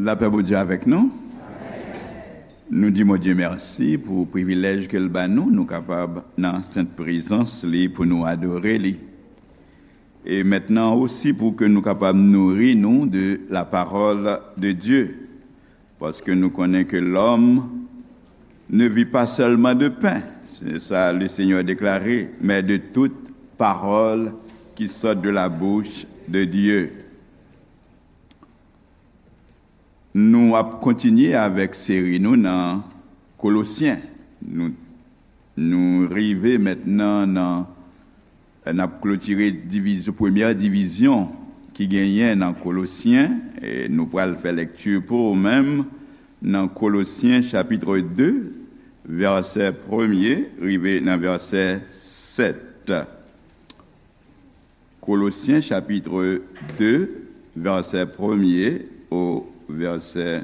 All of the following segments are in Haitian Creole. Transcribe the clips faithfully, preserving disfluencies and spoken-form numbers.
Lapè Bondye avèk nou. Nou di Bondye mèsi pou privilèj ke l ba nou, nou kapab nan sent prezans li pou nou adore li. E mentnan osi pou ke nou kapab nouri nou de la parole de Dieu. Paske nou konnen ke l'homme ne vit pas seulement de pain, c'est ça le Seigneur a déclaré, mais de toute parole qui sort de la bouche de Dieu. Nou ap kontinye avèk seri nou nan Kolosyen. Nou, nou rive mentnan nan, n ap klotire divizyon, premyè divizyon ki genyen nan Kolosyen. E nou pral fè lekti pou ou menm nan Kolosyen chapit de, vèsè premye rive nan vèsè sèt. Kolosyen chapit de, vèsè premye o vèsè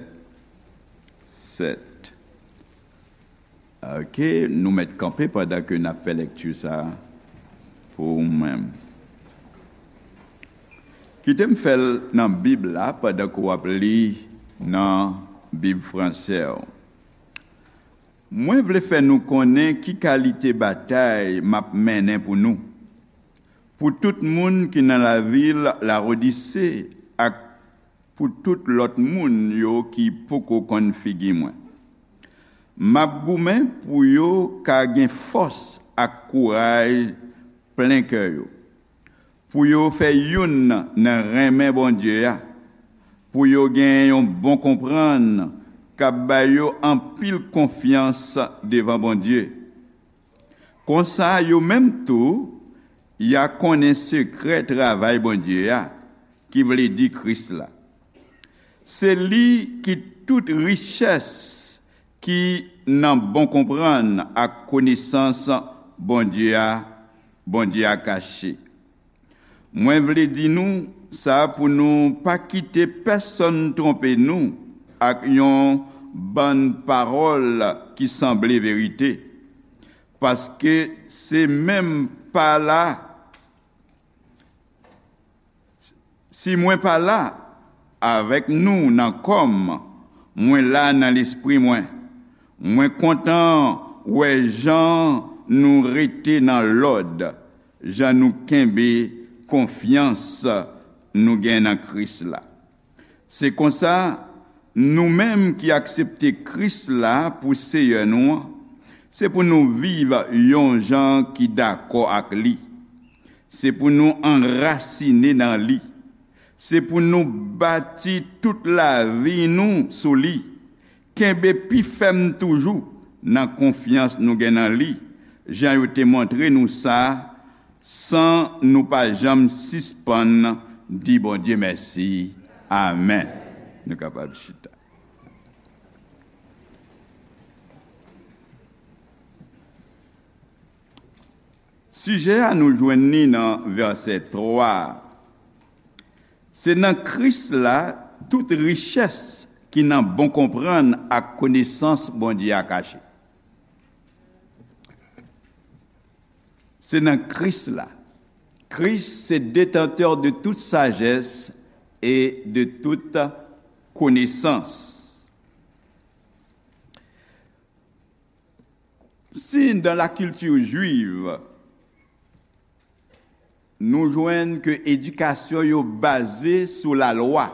sèt. Ok, nou mèt kanpe pandan ke n ap fè lekti sa a pou ou menm. Kite m fè l nan Bib la pandan ke w ap li nan Bib franse w. Mwen vle fè nou konnen ki kalite batay m ap mennen pou nou, pou tout moun ki nan lavil Lawodise ak pou tout lòt moun yo ki poko konn figi mwen. M ap goumen pou yo ka gen fòs ak kouraj plen kè yo, pou yo fè youn nan renmen Bondye a, pou yo gen yon bon konprann k ap ba yo anpil konfyans devan Bondye. Konsa, yo menm tou, y a konnen sekrè travay Bondye a, ki vle di Kris la. Se li ki tout richès ki nan bon konprann ak konesans Bondye a, Bondye a kache. Mwen vle di nou sa pou nou pa kite pèsonn twonpe nou ak yon bann pawòl ki sanble verite. Paske se menm pa la, si mwen pa la avèk nou nan kò m, mwen la nan lespri mwen. Mwen kontan wè jan nou rete nan lòd, jan nou kenbe konfyans nou gen nan Kris la. Se konsa, nou menm ki aksepte Kris la pou Seyè nou an, se pou nou viv yon jan ki dakò ak li. Se pou nou anrasine nan li. Se pou nou bati tout lavi nou sou li. Kenbe pi fèm toujou nan konfyans nou gen nan li, jan yo te montre nou sa, san nou pa janm sispann di Bondye mèsi. Amèn. Nou kapab chita. Sijè a nou jwenn li nan vèsè twa a. Se nan Kris la tout richès ki nan bon konprann ak konesans Bondye a kache. Se nan Kris la. Kris se détenteur de toute sagesse et de toute connaissance. Si dans la culture juive, nou jwenn ke edikasyon yo baze sou lalwa,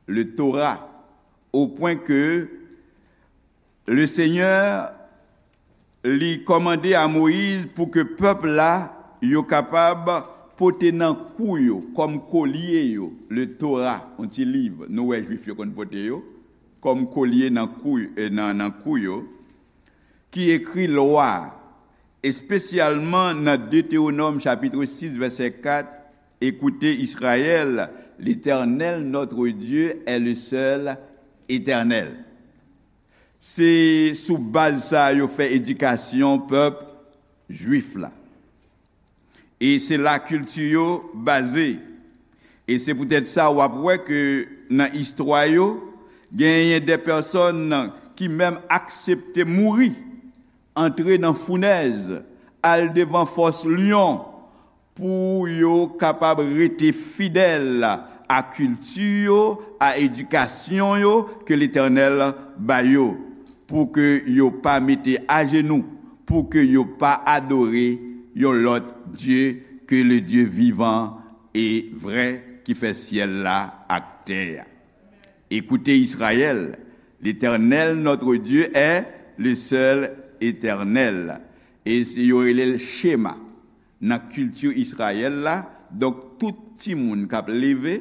le Torah, au point que le Seigneur li kòmande a Moyiz pou ke pèp la yo kapab pote nan kou yo kòm kolye yo, le Torah, yon ti liv nou wè Jwif yo konn pote yo, kòm kolye nan kou, e nan, nan kou yo, ki ekri lwa, espesyalman nan Detewonòm chapit sis vèsè kat, Écoutez Israël, l'Éternel notre Dieu est le seul Éternel. Se sou baz sa a yo fè edikasyon pèp jwif la. E se la kilti yo baze. E se poutèt sa w ap wè ke nan istwa yo, genyen de pèsòn ki menm aksepte mouri, antre nan founèz, al devan fòs lyon, pou yo kapab rete fidèl a kilti yo, a edikasyon yo ke Letènèl ba yo, pou ke yo pa mete ajenou, pou ke yo pa adore yon lòt dye ke le Dye vivan e vrè ki fè syèl la ak tè a. Écoutez Israël, l'Éternel notre Dieu est le seul éternel. E se yo rele l Shema. Nan kilti Izrayèl la, donk tout timoun k ap leve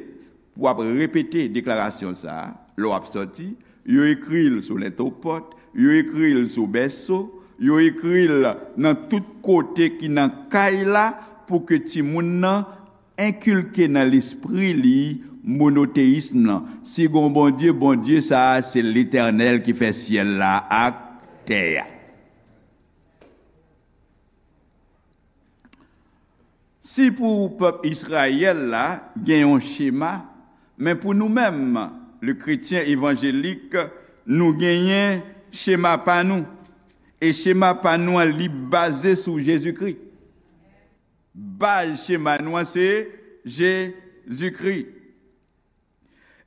pou ap repete deklarasyon sa a, lè w ap sòti, yo ekri l sou lentopòt, yo ekri l sou bèso, yo ekri l nan tout kote ki nan kay la, pou ke timoun nan enkilke nan lespri li monoteyism lan. Si gon Bondye, Bondye sa a se Letènèl ki fè syèl la ak tè a. Si pou pèp Izrayèl la gen yon chema, men pou nou menm, le kretyen evanjelik, nou genyen chema pa nou. E chema pa nou an, li baze sou Jezikri. Baz chema nou an se Jezikri.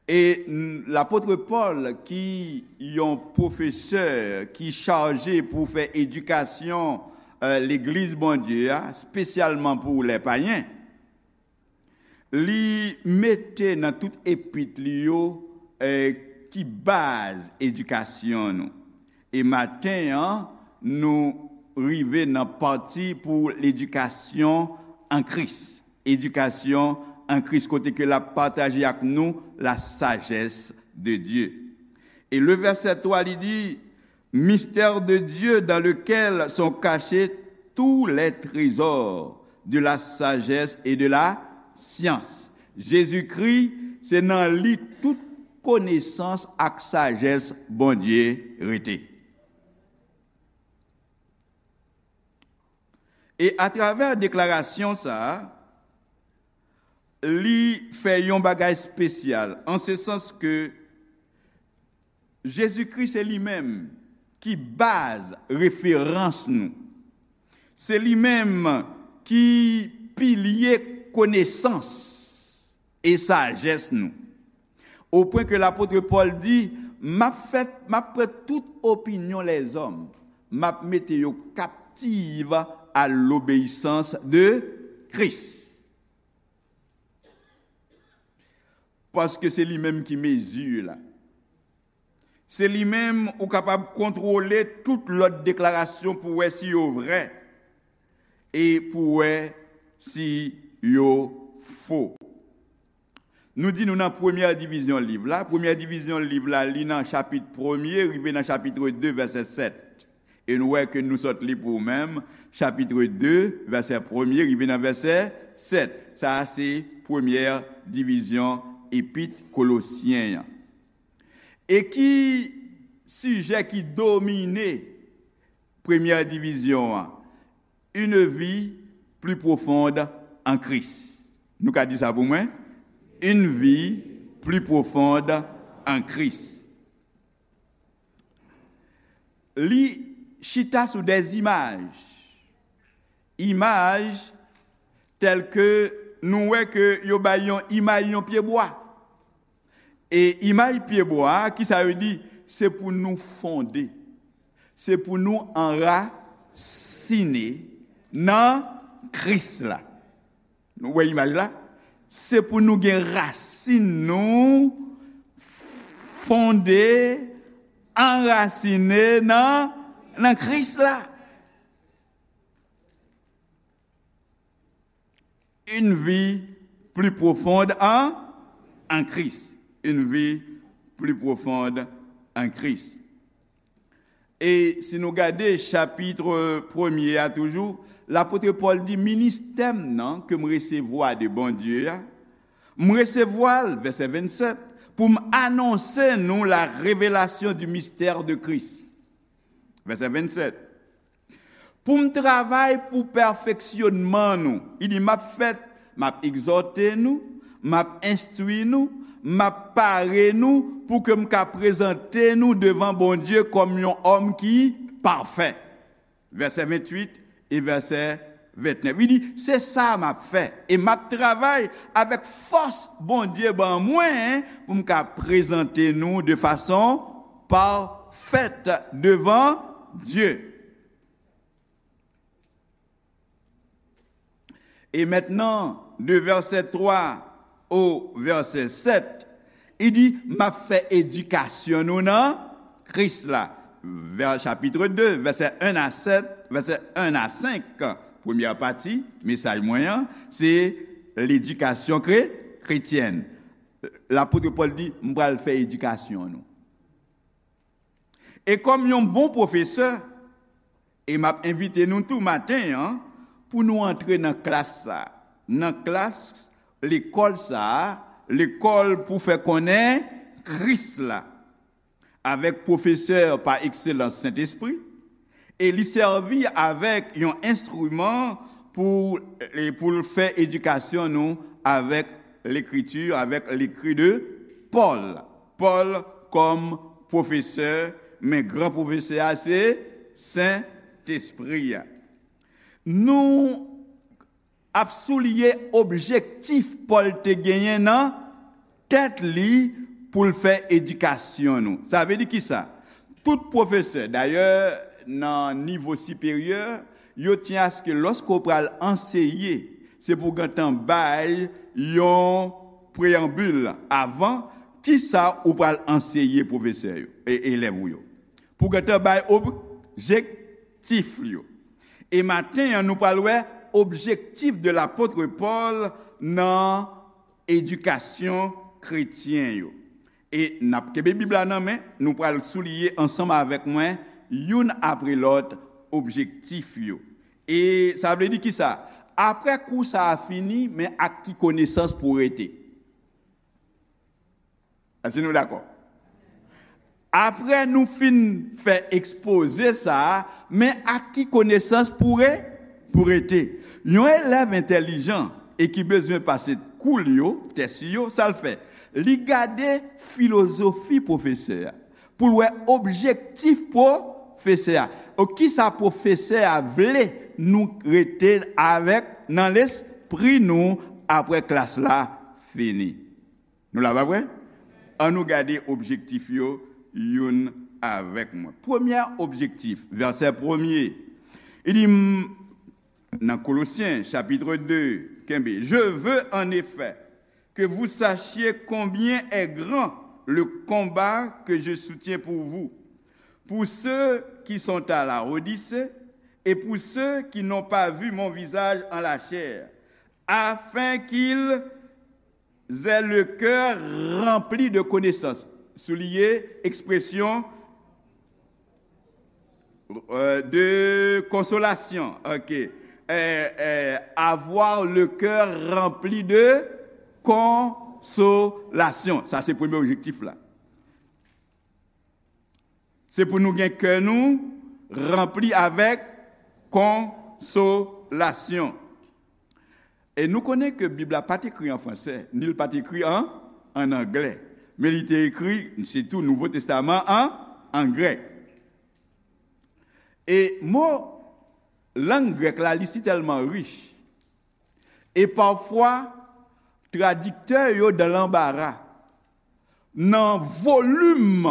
E n- lapot Pòl, ki yon pwofesè ki chaje pou fè edikasyon, eh, legliz Bondye a, espesyalman pou lè payen, li mete nan tout epit li yo, eh, ki baz edikasyon nou. E maten an, nou rive nan pati pou ledikasyon an Kris. Edikasyon an Kris, kote ke l ap pataje ak nou la sagesse de Dieu. E le vèsè twa, li di, mystère de Dieu dans lequel sont cachés tous les trésors de la sagesse et de la science. Jezikri, se nan li tout konesans ak sajès Bondye rete. E atravè deklarasyon sa a, li fè yon bagay espesyal, an se sans ke Jezikri se li menm ki baz referans nou. Se li menm ki pilye konesans e sajès nou. O pwen ke lapot Pòl di, m ap fè, m ap pran tout opinyon lèzòm, m ap mete yo kaptiv a lobeyisans de Kris. Paske se li menm ki mezi la. Se li menm ou kapab kontwole tout lòt deklarasyon pou wè si yo vrè e pou wè si yo fo. Nou di nou nan premyè divizyon liv la. Premyè divizyon liv la, li nan chapit premye rive nan chapit de, vèsè sèt. E nou wè ke nou sot li pou ou menm, chapit de, vèsè premye rive nan vèsè sèt. Sa a se premyè divizyon epit Kolosyen an. E ki sijè ki domine premyè divizyon an? Une vie plus profonde en Christ. Nou ka di sa pou mwen? Une vie plus profonde en Christ. Li chita sou des images. Imaj tèl ke nou wè ke yo bay yon imaj yon pyebwa. E imaj pyebwa a, kisa yo di? Se pou nou fonde. Se pou nou anrasine nan Kris la. Nou wè imaj la? Se pou nou gen rasin nou fonde, anrasine nan, nan Kris la. Une vie plus profonde en, en Christ. Une vie plus profonde en Christ. E si nou gade chapit premye a toujou, lapot Pòl di, ministè m nan ke m resevwa de Bondye a, m resevwa l, vèsè vennsèt, pou m anonse nou la revelasyon du mystère de Christ. Vèsè vennsèt. Pou m travay pou pèfeksyonman nou. Li di, m ap fè, m ap egzòte nou, m ap enstwi nou, m ap pare nou pou ke m ka prezante nou devan Bondye kòm yon òm ki pafè. Vèsè venntuit e vèsè Ventnèf, li di, se sa m ap fè, e m ap travay avèk fòs Bondye ban mwen pou m ka prezante nou de fason pafèt devan Dye. E mentnan, de vèsè twa o vèsè sèt, li di, m ap fè edikasyon nou nan Kris la. Vè, chapit de, vèsè en a sèt, vèsè en a senk, premyè pati mesaj mwen an, se ledikasyon kre, kretyèn. Lapot Pòl di, m pral fè edikasyon nou. E kòm yon bon pwofesè, e m ap envite nou tou maten an pou nou antre nan klas sa a, nan klas lekòl sa a, lekòl pou fè konnen Kris la, avèk pwofesè pa ekselans Sentespri, e li sèvi avèk yon enstriman pou, e pou l fè edikasyon nou avèk Lekriti, avèk lekri de Pòl. Pòl kòm pwofesè, men gran pwofesè a se Sentespri a. Nou ap souliye objektif Pòl te genyen nan tèt li pou l fè edikasyon nou. Sa vle di kisa? Tout pwofesè, dayè, nan nivo siperyè, yo tyen aske lòske w pral anseye, se pou w gentan bay yon preyanbil avan kisa ou pral anseye pwofesè yo, e elèv ou yo. Pou w gentan bay objektif yo. E maten an, nou pral wè objektif de lapot Pòl nan edikasyon kretyen yo. E n ap kenbe Bib la nan men, nou pral souliye ansanm avèk mwen, youn apre lòt, objektif yo. E sa vle di kisa? Apre kou sa a fini, men ak ki konesans pou w rete? Èske nou dakò? Apre nou fin fè ekspoze sa a, men ak ki konesans pou re, pou rete? Yon elèv entèlijan e ki bezwen pase kou l yo, tès yo, sa l fè? Li gade filozofi pwofesè a, pou l wè objektif pwofesè a. O, kisa pwofesè a vle nou rete avèk nan lespri nou apre klas la fini? Nou la, pa vre? An nou gade objektif yo youn avèk mwen. Premyè objektif, vèsè premye, li di, m, nan Kolosyen, chapit de, kenbe, je veux en effet que vous sachiez combien est grand le combat que je soutiens pour vous, pour ceux qui sont à la Odyssée et pour ceux qui n'ont pas vu mon visage en la chair, afin qu'ils aient le cœur rempli de connaissance. Souliye ekspresyon, euh, de consolation. Ok. Euh, euh, avoir le cœur rempli de consolation. Sa se premye objektif la. Se pou nou gen kè nou ranpli avèk konsolasyon. E nou konnen ke Bib la pa t ekri an fransè, ni l pa t ekri an, an anglè. Men li te ekri, sitou Nouvo Testaman an, an grèk. E mo lang grèk la, li si tèlman rich. E pafwa, tradiktè yo dan lanbara nan volim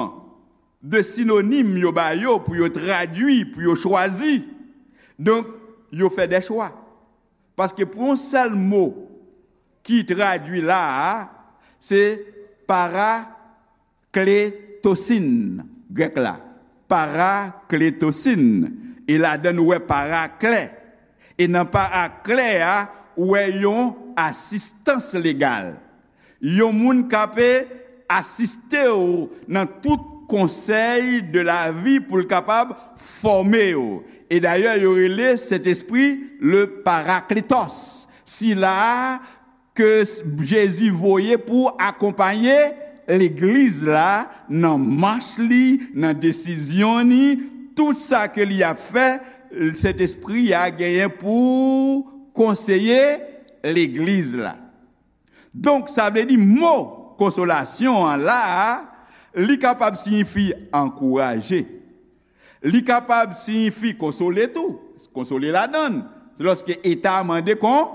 de sinonim yo ba yo pou yo tradui, pou yo chwazi. Donk, yo fè de chwa. Paske pou yon sèl mo ki tradui la a, se parakletosin, grèk la. Parakletosin. E ladan nou wè paraklè. E nan paraklè a, ou wè yon asistans legal. Yon moun k ap asiste w nan tout konsèy de lavi pou l kapab fòme w. E dayè, yo rele Sentespri le Parakletos. Sila ke Jezi voye pou akonpaye legliz la nan mach li, nan desizyon ni, tout sa ke li ap fè, Sentespri a genyen pou konseye legliz la. Donk, sa vle di mo konsolasyon an la a, li kapab siyifi ankouraje. Li kapab siyifi konsole tou, konsole ladan l, Lòske eta a mande kon,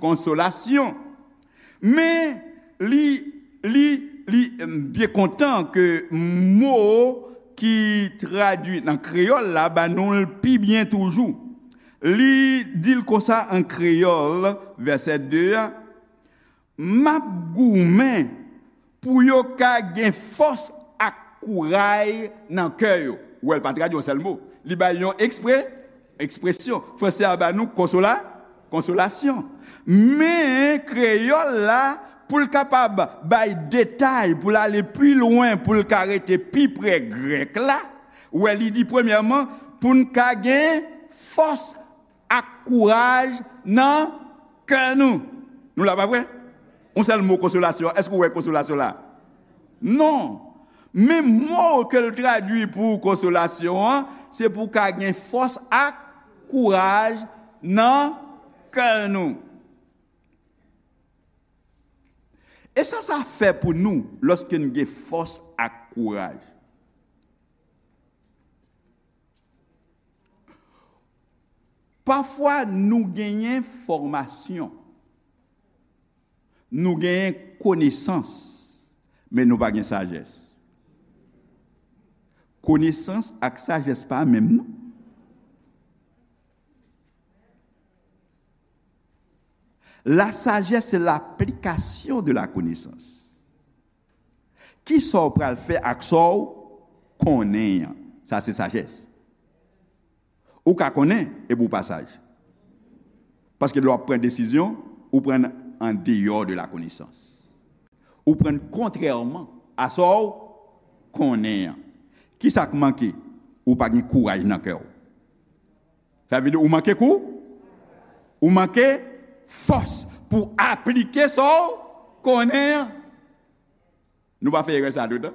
konsolasyon. Men, li, li, li, m byen kontan ke mo ki tradui nan kreyòl la ba nou l pi byen toujou. Li di l konsa an kreyòl, vèsè de a, M ap goumen pou yo ka gen fòs ak kouray nan kè yo. Ou wè, l pa tradui yon sèl mo. Li bay yon ekspre, ekspresyon. Franse a ba nou konsola, konsolasyon. Men kreyòl la, pou l kapab bay detay, pou l ale pi lwen, pou l ka rete pi pre grèk la, ou wè, li di premyèman, pou n ka gen fòs ak kouraj nan kè nou. Nou la, pa vre? Yon sèl mo konsolasyon. Èske w wè konsolasyon la? Non. Men mo ke l tradui pou konsolasyon an, se pou w ka gen fòs ak kouraj nan kè nou. E sa sa fè pou nou lòske n gen fòs ak kouraj? Pafwa nou genyen fòmasyon, nou genyen konesans, men nou pa gen sajès. Konesans ak sajès pa menm, non. La sagesse, c'est l'application de la connaissance. Kisa w pral fè ak sa w konnen an? Sa se sajès. Ou ka konnen epi w pa saj. Paske lè w ap pran desizyon, ou pran an deyò de la konesans. Ou pran kontrèman a sa w konnen an. Kisa k manke? Ou pa gen kouraj nan kè w. Sa vle di ou manke kou, ou manke fòs pou aplike sa w konnen an. Nou pa fè erè sa toutan?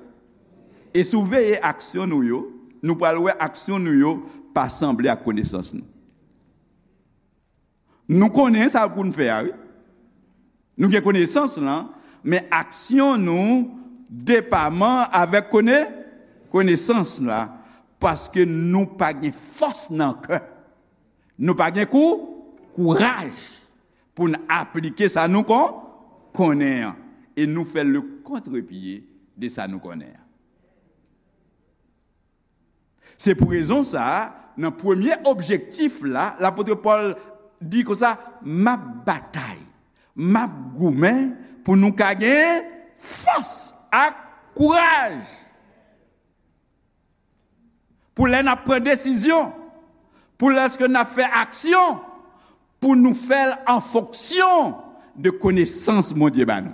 E si w veye aksyon nou yo, nou pral wè aksyon nou yo pa sanble ak konesans nou. Nou konnen sa pou n fè a, wi. Nou gen konesans lan, men aksyon nou depaman avèk kone-, konesans la, paske nou pa gen fòs nan kè. Nou pa gen kou-, kouraj pou n aplike sa nou kon-, konnen an. E nou fè le kontrepye de sa nou konnen an. Se pou rezon sa a, nan premye objektif la, lapot Pòl di konsa, "M ap batay, m ap goumen pou nou ka gen fòs ak kouraj." Pou lè n ap pran desizyon, pou lèske n ap fè aksyon, pou nou fè l an fonksyon de konesans Bondye ba nou.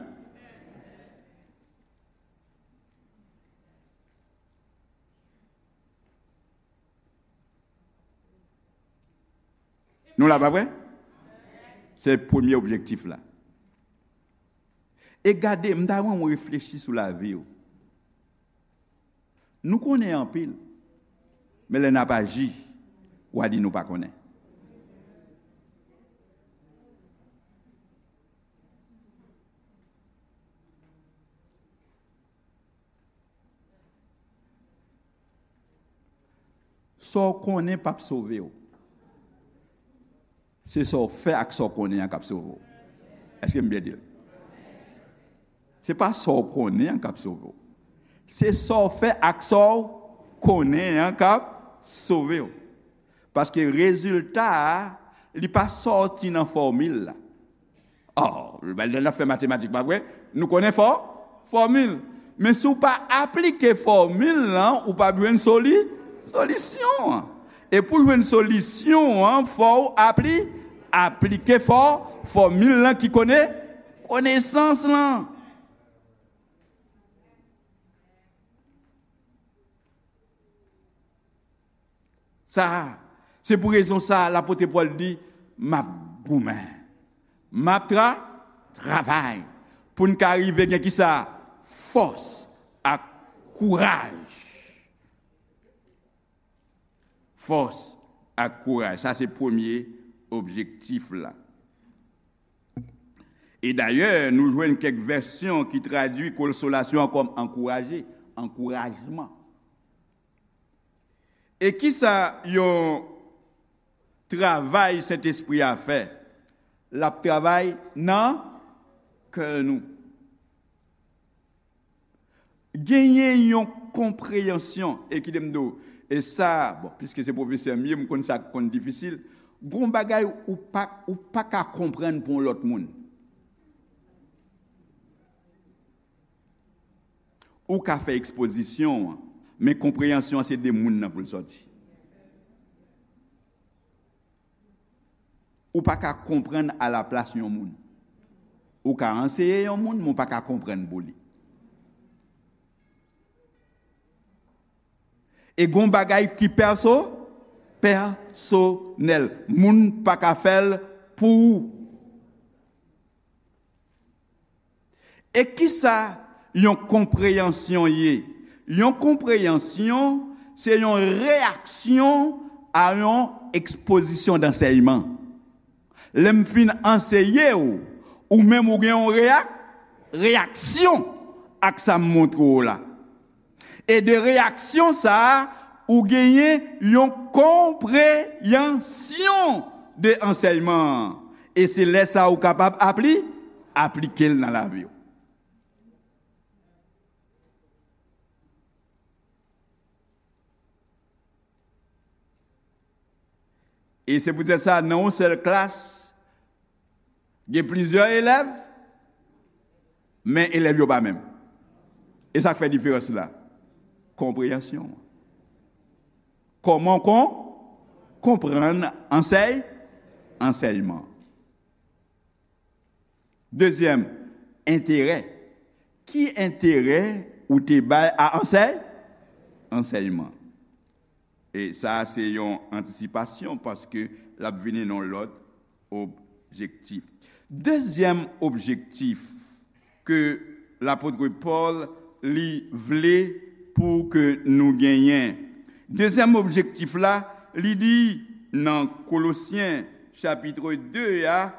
Nou la, pa vre? Se premye objektif la. E gade, m ta renmen w reflechi sou lavi w. Nou konnen anpil, men lè n ap aji, w a di nou pa konnen. Sa w konnen p ap sove w. Se sa w fè ak sa w konnen an k ap sove w. Èske m byen di l? Se pa sa w konnen an k ap sove w. Se sa w fè ak sa w konnen an k ap sove w. Paske rezilta a, li pa sòti nan fòmil la. Oh, lè n ap fè matematik, pa vre? Nou konnen fò-, fòmil. Men si w pa aplike fòmil lan, ou p ap jwenn soli-, solisyon an. E pou jwenn solisyon an, fò w apli-, aplike fò-, fòmil lan ki kone-, konesans lan. Sa, se pou rezon sa, lapot Pòl di, "M ap goumen, m ap tra-, travay," pou n ka rive gen kisa? Fòs ak kouraj. Fòs ak kouraj. Sa se premye objektif la. E dayè, nou jwenn kèk vèsyon ki tradui konsolasyon an kòm ankouraje, ankourajman. E kisa yon travay Sentespri a fè, l ap travay nan kè nou. Genyen yon konpreyansyon, e kite m di w, e sa, bon, piske se pwofesè m ye, m konn sa k konn difisil. Gon bagay ou pa, ou pa ka konprann pou yon lòt moun. Ou ka fè ekspozisyon an, men konpreyansyon an se de moun nan pou l sòti. Ou pa ka konprann alaplas yon moun. Ou ka anseye yon moun, men ou pa ka konprann pou li. E gon bagay ki pèso, pèsonèl. Moun pa ka fè l pou ou. E kisa yon konpreyansyon ye? Yon konpreyansyon se yon reyaksyon a yon ekspozisyon dansèyman. Lè m fin anseye w, ou menm ou gen yon reyak, reyaksyon ak sa m montre w la. E de reyaksyon sa a, ou genyen yon konpreyansyon de ansèyman an. E se lè sa a ou kapab apli, aplike l nan lavi w. E se poutèt sa, nan yon sèl klas, gen plizyè elèv, men elèv yo pa menm. E sa k fè diferans la? Konpreyansyon. Kòman w kon, konprann ansèy, ansèyman. Dezyèm, enterè. Ki enterè ou te bay a ansèy, ansèyman? E sa a se yon antisipasyon paske l ap vini nan yon lòt objektif. Dezyèm objektif ke lapot Pòl li vle pou ke nou genyen. Dezyèm objektif la, li di nan Kolosyen chapit de a,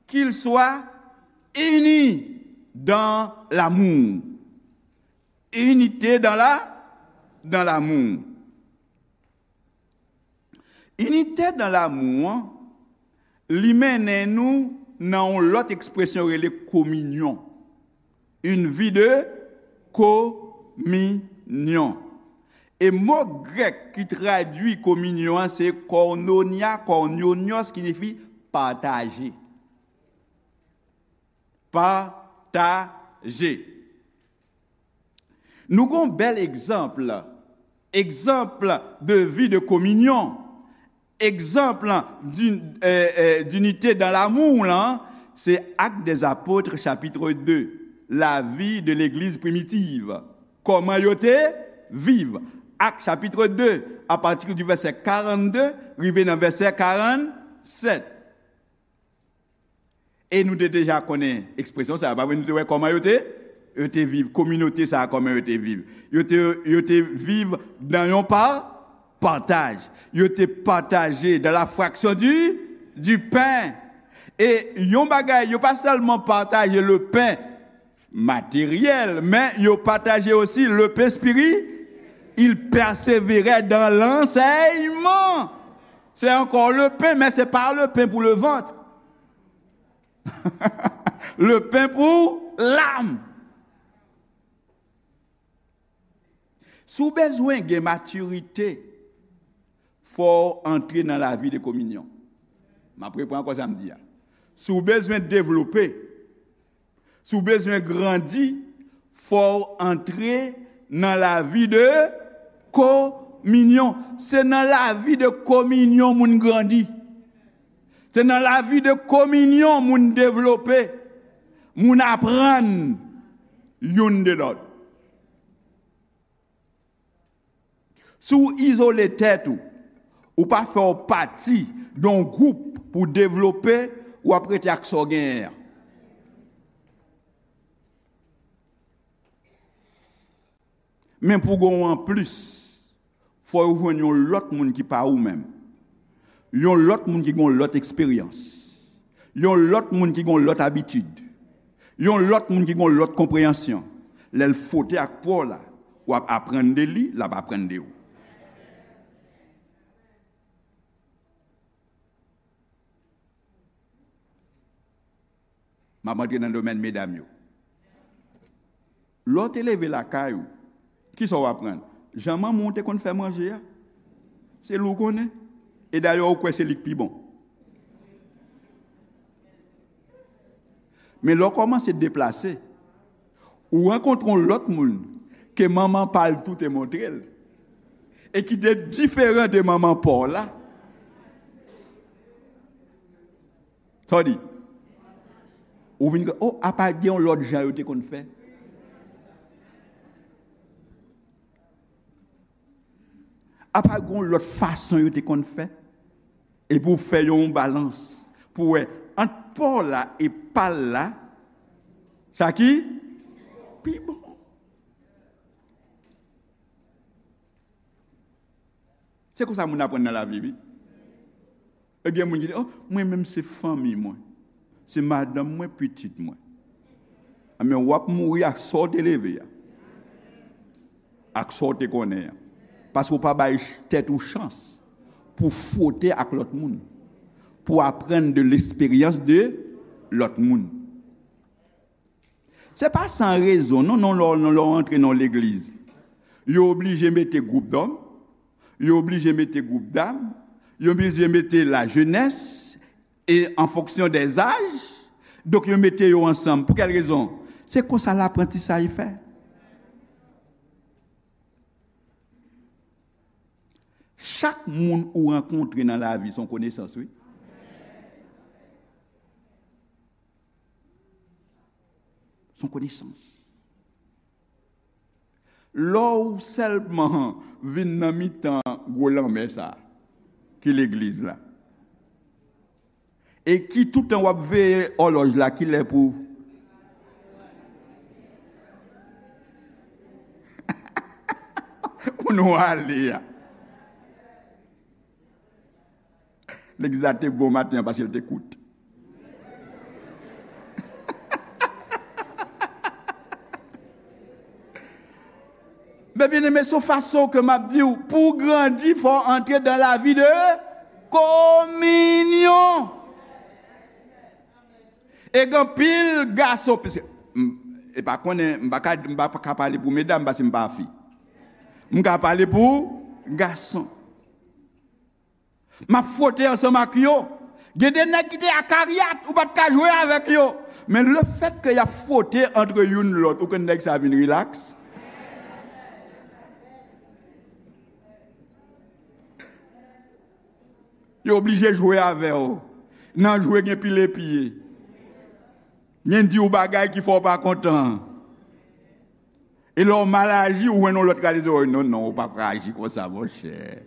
qu'ils soient unis dans l'amour. Inite dans la, dans l'amour. Inite dans l'amour an, li mennen nou nan yon lòt ekspresyon rele kominyon. Une vie de communion. E mo grèk ki tradui kominyon an se koinonia, koinonios, ki siyifi pataje. Pataje. Nou gon bèl egzanp, egzanp de vi de kominyon, egzanp di, euh, euh, d'inité dans l'amour lan, se Actes des Apôtres, chapitre deux, lavi de legliz primitiv. Kòman yo te viv? Actes chapitre deux, à partir du verset quarante-deux, rive nan vèsè karannsenk. E nou te deja konnen ekspresyon sa a, pa vre? Nou te wè kòman yo te, yo te viv, kominote sa a, kòman yo te viv. Yo te, yo te viv nan yon pa, pataj. Yo te pataje dans la fraction du, du pain. E yon bagay, yo pa sèlman pataje le pain matériel, men yo pataje osi le pain spirituel. Ils persévéraient dans l'enseignement. C'est encore le pain, mais c'est pas le pain pour le ventre. Le pain pour l'âme. Si w bezwen gen matirite, fò w antre nan lavi de kominyon. M ap reprann ankò sa m di a. Si w bezwen devlope, si w bezwen grandi, fò w antre nan lavi de kominyon. Se nan lavi de kominyon moun grandi. Se nan lavi de kominyon moun devlope, moun aprann youn de lòt. Si w izole tèt ou, ou pa fè w pati de yon gwoup pou w devlope, w ap rete ak sa w genyen an. Men pou w gen yon anplis, fò w jwenn yon lòt moun ki pa ou menm. Yon lòt moun ki gen yon lòt eksperyans. Yon lòt moun ki gen yon lòt abitid. Yon lòt moun ki gen yon lòt konpreyansyon. Lè l fwote ak pa w la, w ap aprann de li, l ap aprann de ou. M ap antre nan domèn medam yo. Lè w te leve lakay ou, kisa w aprann? Jan manman w te konn fè manje a. Se li w konnen. E dayè, ou kwè se li k pi bon. Men lè w kòmanse deplase, ou rankontre yon lòt moun ke manman pa l tou te montre l, e ki te diferan de manman pa w la. Sa w di? Ou vin, oh, apa gen yon lòt jan yo te konn fè? Apa gen yon lòt fason yo te konn fè? Epi w fè yon balans pou wè ant pa w la e pa l la, sa ki pi bon. Se konsa moun aprann nan lavi, wi. E gen moun ki di, oh, mwen menm se fanmi mwen. Se madanm mwen, pitit mwen. Anben, w ap mouri ak sa w te leve a. Ak sa w te konnen an. Paske w pa bay ch- tèt ou chans pou fwote ak lòt moun. Pou aprann de lesperyans de lòt moun. Se pa san rezon, non, non, lè w, lè w antre nan legliz. Yo oblije mete gwoup dòm, yo oblije mete gwoup dam, yo oblije mete lajenès, e an fonksyon dè zaj, donk yo mete yo ansanm. Pou kèl rezon? Se konsa laprantisaj fè. Chak moun ou rankontre nan lavi, se yon konesans, wi. Se yon konesans. Lè w sèlman vin nan mitan gwo lanmè sa a, ki legliz la, e ki toutan w ap veye òlòj la, kilè pou, pou nou ale a. Legliz la te bon maten an paske l te kout. Men byeneme, se yon fason ke m ap di w, pou w grandi, fò w antre dan lavi de kominyon. E gen anpil gason, piske, m, e pa konnen, m pa ka, m pa ka pale pou medam paske m pa fi. M ka pale pou gason. M ap fwote ansanm ak yo. Gen de nèg ki te akaryat, ou pa t ka jwe avèk yo. Men lefètke y ap fwote antre youn lòt, ou konn nèg sa vin rilaks. Yo oblije jwe avè w. Nan jwe gen pile pye. Gen di w bagay ki fè w pa kontan. E lè w mal aji, ou jwenn yon lòt k al di w, non, non, ou pa ka aji konsa, monchè.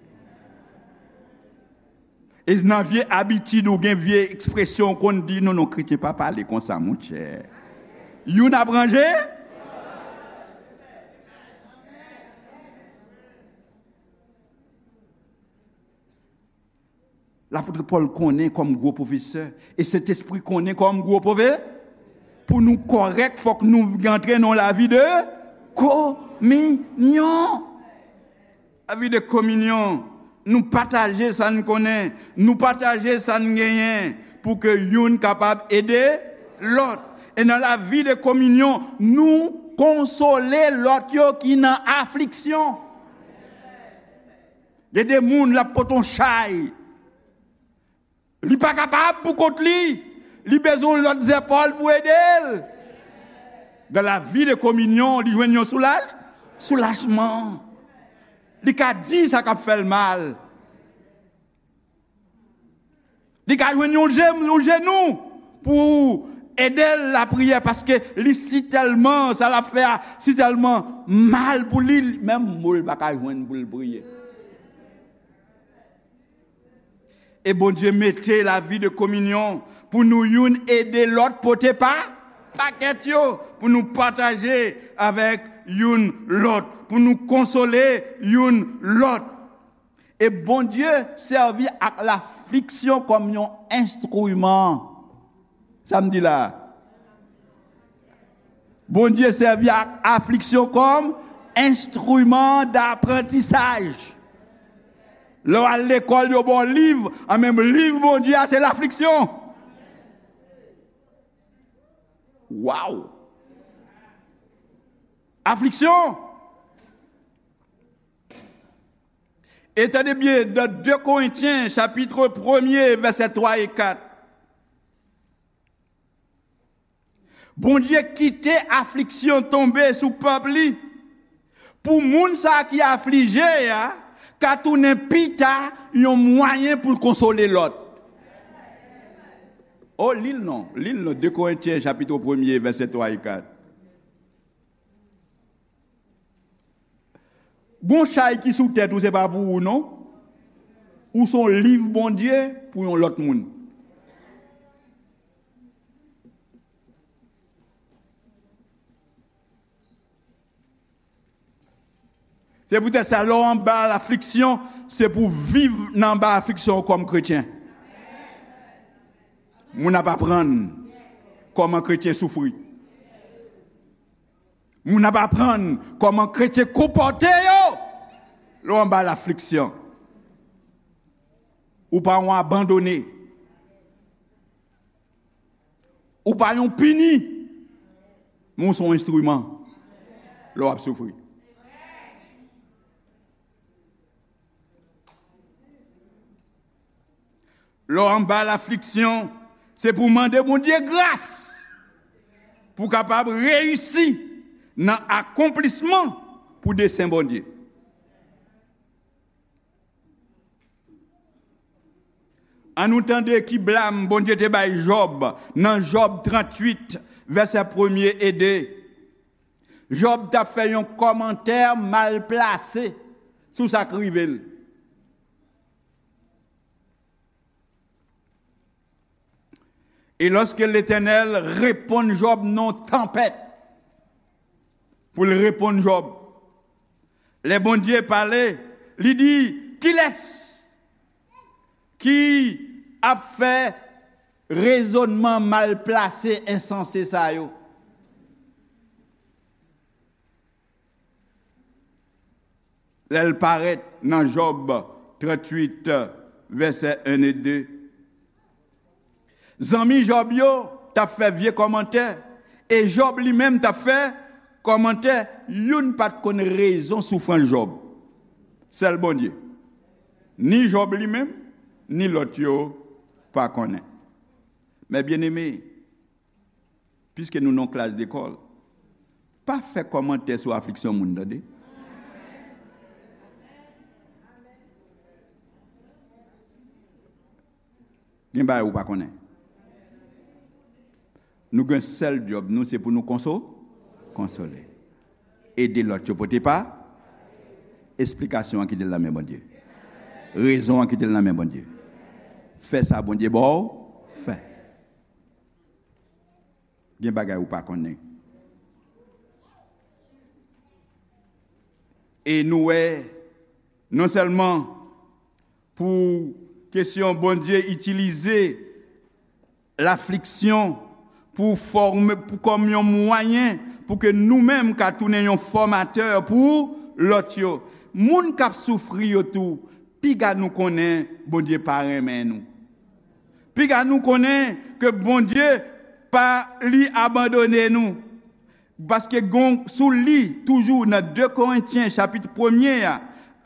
E nan vye abitid ou gen, vye ekspresyon ou konn di, non, non, kretyen pa pale konsa, monchè. Youn ap ranje. Lapot Pòl konnen kòm gwo pwofesè, e Sentespri konnen kòm gwo pwofesè, pou nou kòrèk, fòk nou antre nan lavi de kominyon. Lavi de kominyon, nou pataje sa n konnen, nou pataje sa n genyen, pou ke youn kapab ede lòt. E nan lavi de kominyon, nou konsole lòt yo ki nan afliksyon. Gen de moun l ap pote yon chay. Li pa kapab pou kont li. Li bezwen yon lòt zèpòl pou ede l. Dan lavi de kominyon, li jwenn yon soulaj, soulajman. Li ka di sa k ap fè l mal. Li ka jwenn yon je, yon jenou pou ede l lapriyè, paske li si tèlman, sa l ap fè a, si tèlman mal pou li, menm mo l pa ka jwenn pou l priye. E Bondye mete lavi de kominyon pou nou youn ede lòt pote pa, pakèt yo, pou nou pataje avèk youn lòt, pou nou konsole youn lòt. E Bondye sèvi ak lafliksyon kòm yon enstriman. Sa m di la a? Bondye sèvi ak afliksyon kòm enstriman daprantisaj. Lè w al lekòl, yo ba w liv, an menm liv Bondye a, se lafliksyon. Waw! Afliksyon! E tande byen, nan de Korentyen, chapit premye, vèsè twa e kat. Bondye kite afliksyon tonbe sou pèp li, pou moun sa ki aflije a ka tounen pita yon mwayen pou l konsole lòt. O, li l non, li l non, de Korentyen, chapit premye, vèsè twa e kat. Gon chay ki sou tèt ou, se pa pou ou, non. Ou se yon liv Bondye pou yon lòt moun. Se poutèt sa, lè w anba lafliksyon, se pou w viv nan anba afliksyon w kòm kretyen. Moun ap aprann kòman kretyen soufri. Moun ap aprann kòman kretyen konpòte yo lè w anba lafliksyon. Ou pa yon abandone. Ou pa yon pini. Men w se yon enstriman lè w ap soufri. Lè w anba lafliksyon, se pou w mande Bondye gras pou w kapab reyisi nan akonplisman pou desen Bondye. Ann nou tande ki blam Bondye te bay Jòb nan Jòb tranntuit, vèsè premye e de. Jòb t ap fè yon kòmantè mal plase sou sa k rive l. E lòske Letènèl reponn Jòb nan yon tanpèt, pou l reponn Jòb, lè Bondye pale, li di, kilès ki ap fè rezònman mal plase, ensanse sa yo? Lè l parèt nan Jòb tranntuit, vèsè en e de. Zanmi Jòb yo t ap fè vye kòmantè, e Jòb li menm t ap fè kòmantè, youn pa t konn rezon soufrans Jòb. Sèl Bondye. Ni Jòb li menm, ni lòt yo pa konnen. Men byeneme, piske nou nan klas lekòl, pa fè kòmantè sou afliksyon moun, tande. Gen bagay ou pa konnen. Nou gen sèl djòb nou, se pou nou konso-, konsole. Ede lòt yo pote pa. Esplikasyon an kite l nan men Bondye. Rezon an kite l nan men Bondye. Fè sa Bondye ba w fè. Gen bagay ou pa konnen. E nou wè, non sèlman pou kesyon Bondye itilize lafliksyon pou fòme, pou, kòm yon mwayen pou ke nou menm ka tounen yon fòmatè pou lòt yo. Moun k ap soufri yo tou, piga nou konnen Bondye pa renmen nou. Piga nou konnen ke Bondye pa li abandone nou. Paske gon, si w li toujou nan de Korentyen chapit premye a,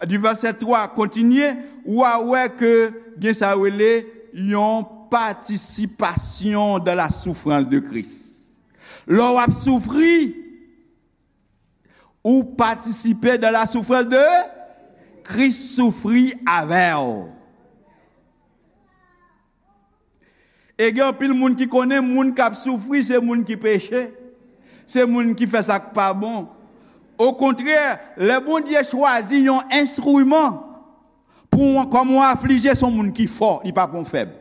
di vèsè twa kontinye, w a wè ke gen sa yo rele yon participation dans la souffrance de Christ. Lè w ap soufri, ou patisipe dans la souffrance de Christ, soufri avè w. E gen anpil moun ki konnen moun k ap soufri se moun ki peche, se moun ki fè sa k pa bon. Okontrè, lè Bondye chwazi yon enstriman pou w, kòm yon aflije, se yon moun ki fò, li pa pran w fèb.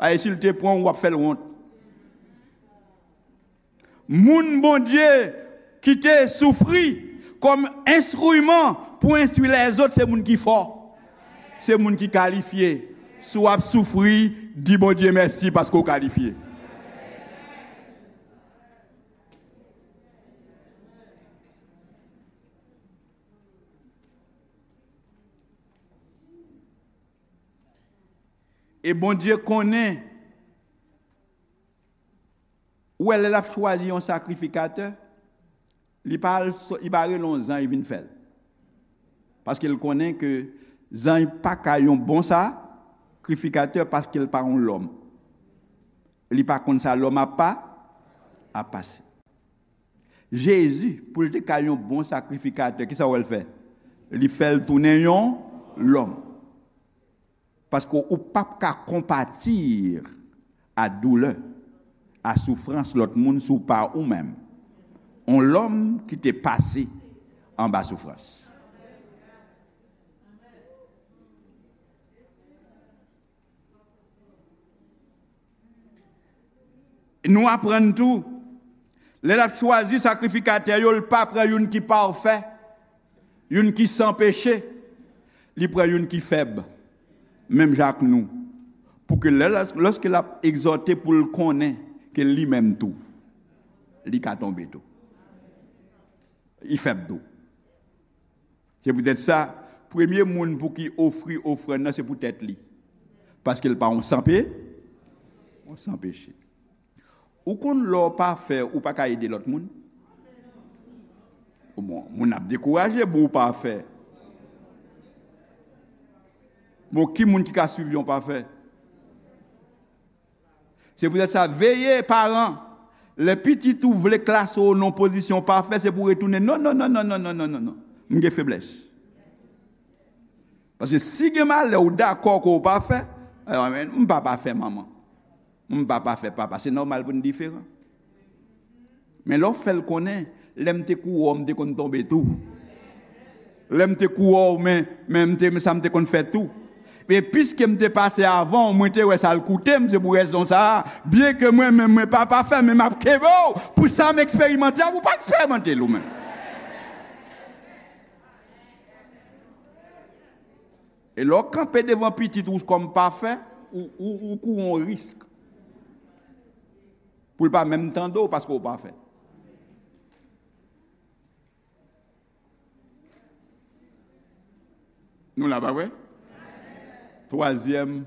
Paske si l te pran w, w ap fè l wont. Moun Bondye kite soufri kòm enstriman pou enstwi lèzòt, se moun ki fò, se moun ki kalifye. Si w ap soufri, di Bondye mèsi paske w kalifye. E Bondye konnen Ou wè, lè l ap chwazi yon sakrifikatè, li pa al so- li pa rele yon zanj vin fè l. Paske l konnen ke zanj pa ka yon bon sakrifikatè paske l pa yon lòm. Li pa konn sa lòm ap pa ap pase. Jezi, pou l te ka yon bon sakrifikatè, kisa w wè l fè? Li fè l tounen yon lòm. Paske ou p ap ka konpati a doulè, a soufrans lòt moun si w pa ou menm. On lòm ki te pase anba soufrans. Nou aprann tou, lè l ap chwazi sakrifikatè yo, l pa pran youn ki pafè, youn ki san peche, li pran youn ki fèb, menm jan ak nou, pou ke lè, lòske l ap egzòte, pou l konnen ke li menm tou, li ka tonbe tou. Li fèb tou. Se poutèt sa, premye moun pou ki ofri ofrann nan, se pou tèt li. Paske l pa yon san pe, yon san peche. Ou konn lè w pafè, ou pa ka ede lòt moun? Bon, moun ap dekouraje pou w pafè. Bon, ki moun ki ka swiv yon pafè? Se poutèt sa, veye, paran, lè pitit ou vle klase w nan pozisyon pafè, se pou w retounen. Non, non, non, non, non, non, non, non, non. M gen feblès. Paske si gen malè, ou dakò ke w pafè, alò, men, m pa pafè, manman. M pa pafè, papa. Se nòmal pou n diferan. Men lè w fè l konnen, lè m te kouri w, m te konn tonbe tou. Lè m te kouri w, men, men m te, sa m te konn fè tou. Men piske m te pase avan w, mwen te wè sa l koute m, se pou rezon sa a, byenke mwen menm mwen pa pafè, men m ap kenbe w pou sa m eksperimante a, ou pa eksperimante l ou menm. E lè w kanpe devan pitit ou kòm pafè, ou, ou, ou kouri yon risk pou l pa menm tande w paske w pafè. Nou la, pa vre? Twazyèm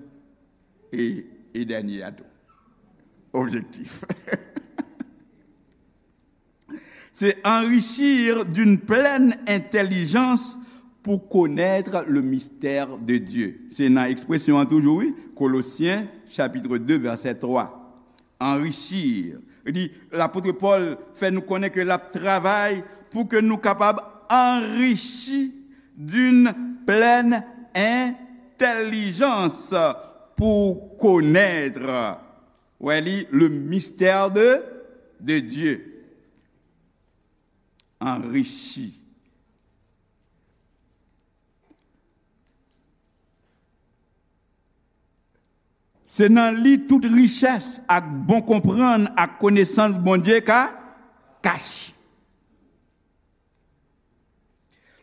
e, e dènye a tou. Objektif. C'est enrichir d'une pleine intelligence pour connaître le mystère de Dieu. Se nan ekspresyon an toujou, wi. Kolosyen, chapitre deux, verset trois. Enrichir. Li di, lapot Pòl fè nou konnen ke l ap travay pou ke nou kapab anrichi d'une pleine intelligence pour connaître, wè li, le mystère de, de Dieu. Anrichi. Se nan li tout richès ak bon konprann ak konesans Bondye ka kache.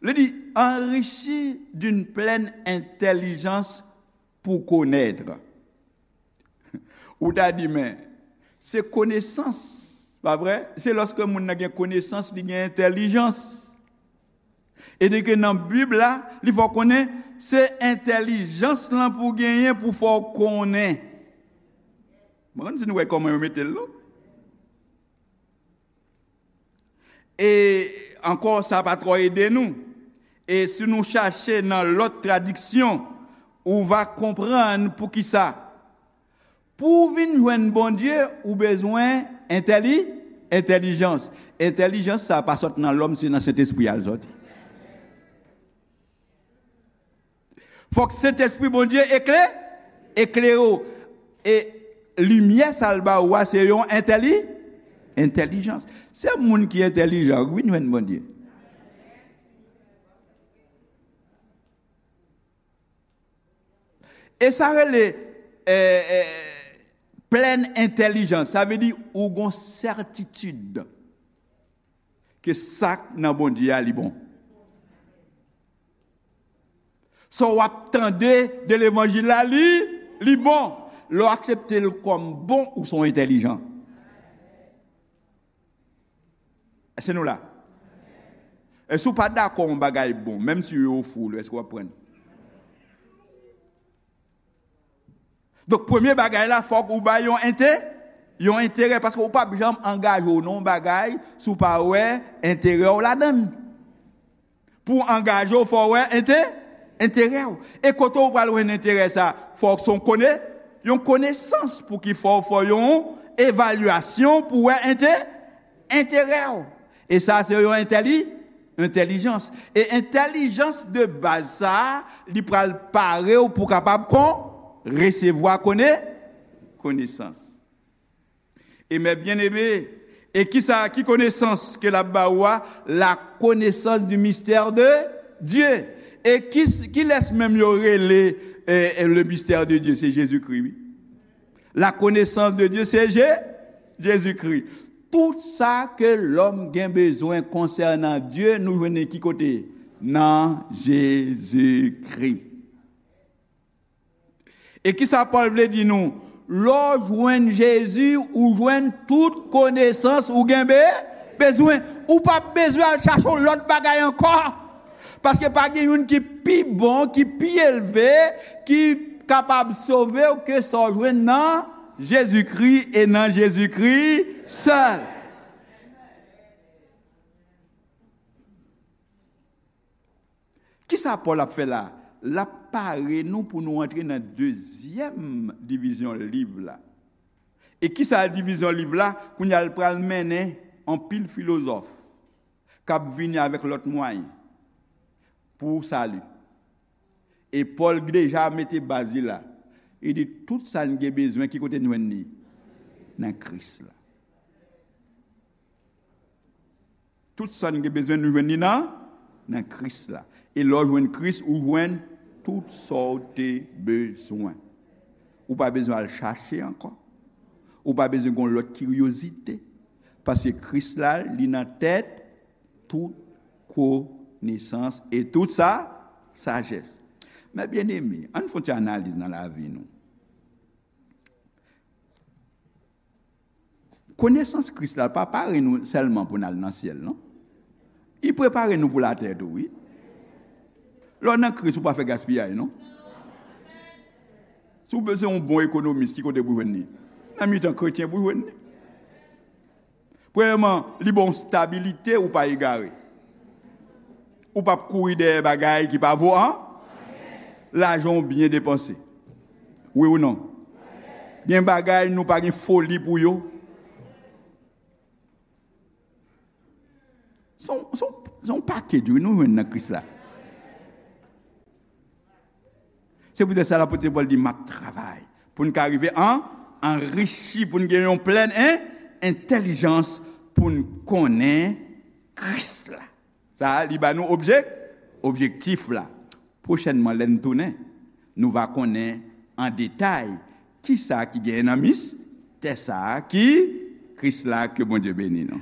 Li di, enrichi d'une pleine intelligence pour connaître. Ou ta di, men, se konesans, pa vre? Se lòske moun nan gen konesans, li gen entèlijans. E di ke nan Bib la, li fè w konnen se entèlijans lan pou w genyen pou fè w konnen. Mwen konn si nou wè kòman yo mete l, non? E ankò, sa pa twò ede nou. E si nou chache nan lòt tradiksyon, ou va konprann poukisa. Pou w vin jwenn Bondye, ou bezwen entèli, entèlijans. Entèlijans sa a pa sot nan lòm, se nan Sentespri a l sòti. Fòk Sentespri Bondye ekle, eklere w. E limyè sa l ba ou a, se yon entèli, entèlijans. Se moun ki entèlijan k vin jwenn Bondye. E sa rele, eh, eh, plèn entèlijans. Sa vle di ou gon sètitid ke sa k nan Bondye a, li bon. Sa w ap tande de levanjil la, li, li bon. Lè w aksepte l kòm bon, ou se yon entèlijan. Èske nou la? E si w pa dakò yon bagay bon, menm si yo ofri w li, èske w ap pran l? Donk, premye bagay la, fòk ou bay yon ente-, Yon enterè, paske ou p ap janm angaje w nan yon bagay si w pa wè enterè w ladan l. Pou w angaje w, fò w wè ente, enterè w. E kote w pral jwenn enterè sa? Fò w se yon kone, yon konesans pou ki fò w fè yon evalyasyon pou w wè ente, enterè w. E sa se yon entèli, entèlijans. E entèlijans de baz sa a, li pral pare w pou w kapab kon, resevwa kone, konesans. E mè byeneme, e kisa, ki konesans ke l ap ba ou a? La connaissance du mystère de Dieu. E ki, kilès menm yo rele, eh, eh, le mystère de Dieu? Se Jezikri, wi. La connaissance de Dieu, se Je, Jezikri. Tout sa ke lòm gen bezwen konsènan Dye, nou jwenn li ki kote? Nan Jezikri. E kisa Pòl vle di nou? Lè w jwenn Jezi, ou jwenn tout konesans ou gen be, bezwen. Ou p ap bezwen al chache yon lòt bagay ankò. Paske pa gen youn ki pi bon, ki pi elve, ki kapab sove w ke sa w jwenn nan Jezikri e nan Jezikri sèl. Kisa Pòl ap fè la? L ap pare nou pou nou antre nan dezyèm divizyon liv la. E kisa divizyon liv la? Kounye a l pral mennen anpil filozòf k ap vini avèk lòt mwayen pou sali. E Pòl deja mete baz li la. Li di, tout sa n gen bezwen, ki kote n jwenn li? Nan Kris la. Tout sa n gen bezwen, nou jwenn li nan, nan Kris la. E lè w jwenn Kris, ou jwenn tout sa w te bezwen. Ou pa bezwen al chache ankò. Ou pa bezwen gen yon lòt kiryozite. Paske Kris la, li nan tèt tout konesans e tout sa, sajès. Mè byeneme, ann fè yon ti analiz nan lavi nou. Konesans Kris la pa pare nou sèlman pou n al nan syèl, non. Li prepare nou pou latè tou, wi. Lè w nan Kris, ou pa fè gaspiyay, non. Si w bezwen yon bon ekonomis, ki kote pou jwenn li? Nan mitan kretyen pou jwenn li. Premyèman, li ba w stabilite, ou pa egare. Ou p ap kouri dèyè bagay ki pa vo an. Lajan w byen depanse. Wi ou non? Gen bagay nou pa gen foli pou yo. Se yon, se yon, se yon pakèt, wi, nou jwenn nan Kris la. Se poutèt sa lapot Pòl di, m ap travay pou n ka rive an, anrichi, pou n gen yon plèn en, entèlijans pou n konnen Kris la. Sa a, li ba nou objek, objektif la. Pwochènman, lè n tounen, nou va konnen an detay kisa ki genyen nan mistè sa a ki Kris la, ke Bondye beni nou.